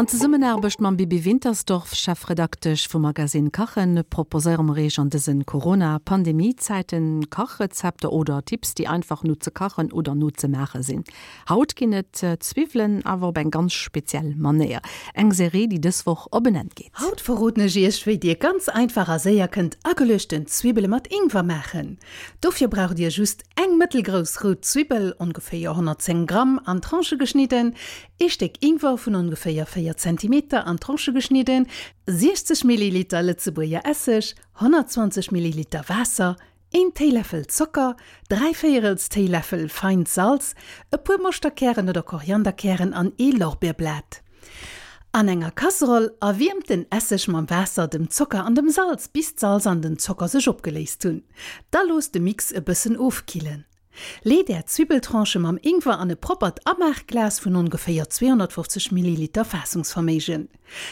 An Zesummenaarbecht mam Bibi Wintersdorf, Chefredaktesch vum Magazine Kachen, proposéiere mer Iech an dësen Corona-Pandemie-Zäiten Kachrezepter oder Tipps, déi einfach no ze kachen oder no ze maache sinn. Haut ginn et Zwiwwelen, awer op eng ganz speziell Manéier. Eng Serie, déi dës Woch op en Enn geet. Haut verroden ech Iech, wéi Dir ganz einfach a séier kënnt ageluechten Zwibbele mat Ingwer maachen. Dofir braucht Dir just eng mëttelgrouss rout Zwibbel, ongeféier 110 Gramm, an Tranchë geschnidden, ee Stéck Ingwer vun ongeféier 4 Zentimeter an Tranchë geschnidden, 60 Milliliter Lëtzebuerger Esseg, 120 Milliliter Waasser, een Téiläffel Zocker, dräivéierels Téiläffel feint Salz, e puer Moschterkären oder Korianderkären an ee Lorbeerblat. An enger Kasseroll erwiermt den Esseg mam Waasser, dem Zocker an dem Salz, bis d'Salz an den Zocker sech opgeléist hunn. Da loosst de Mix e bëssen ofkillen. Leet är Zwibbeltranchë mam Ingwer an e proppert Amaachglas vun ongeféier 250 Milliliter Faassungsverméigen.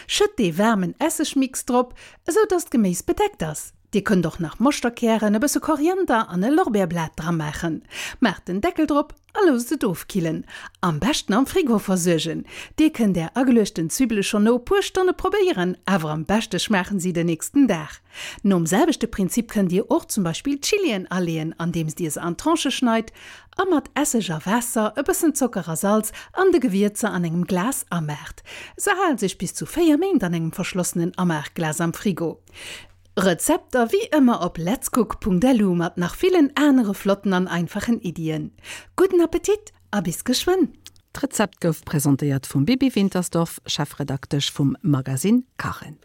Schëtt dee waarmen Essegmix drop, esou dass d'Geméis bedeckt ass. Dir kënnt och nach Moschterkären, e bësse Koriander an e Lorbeerblat dramaachen. Maacht den Deckel drop a loosst et ofkillen. Am beschten am Frigo versuergen. Dir kënnt är ageluechten Zwibbele schonn no e puer Stonne probéieren, awer am beschte schmaachen si den nächsten Dag. Nom selwechte Prinzip kënnt dir och zum Beispill Chillien aleeën, andeems dir se an Tranchë schneit a mat Esseg a Waasser, e bëssen Zocker a Salz an de Gewierzer an engem Glas amaacht. Se halen sech bis zu 4 Méint an engem verschlossenen Amaachglas am Frigo. Rezepter wéi ëmmer op letscook.lu mat nach villen anere flotten an einfachen Iddien. Gudden Appetit a bis geschwënn! D'Rezept gouf presentéiert vum Bibi Wintersdorf, Chefredaktesch vum Magazine Kachen.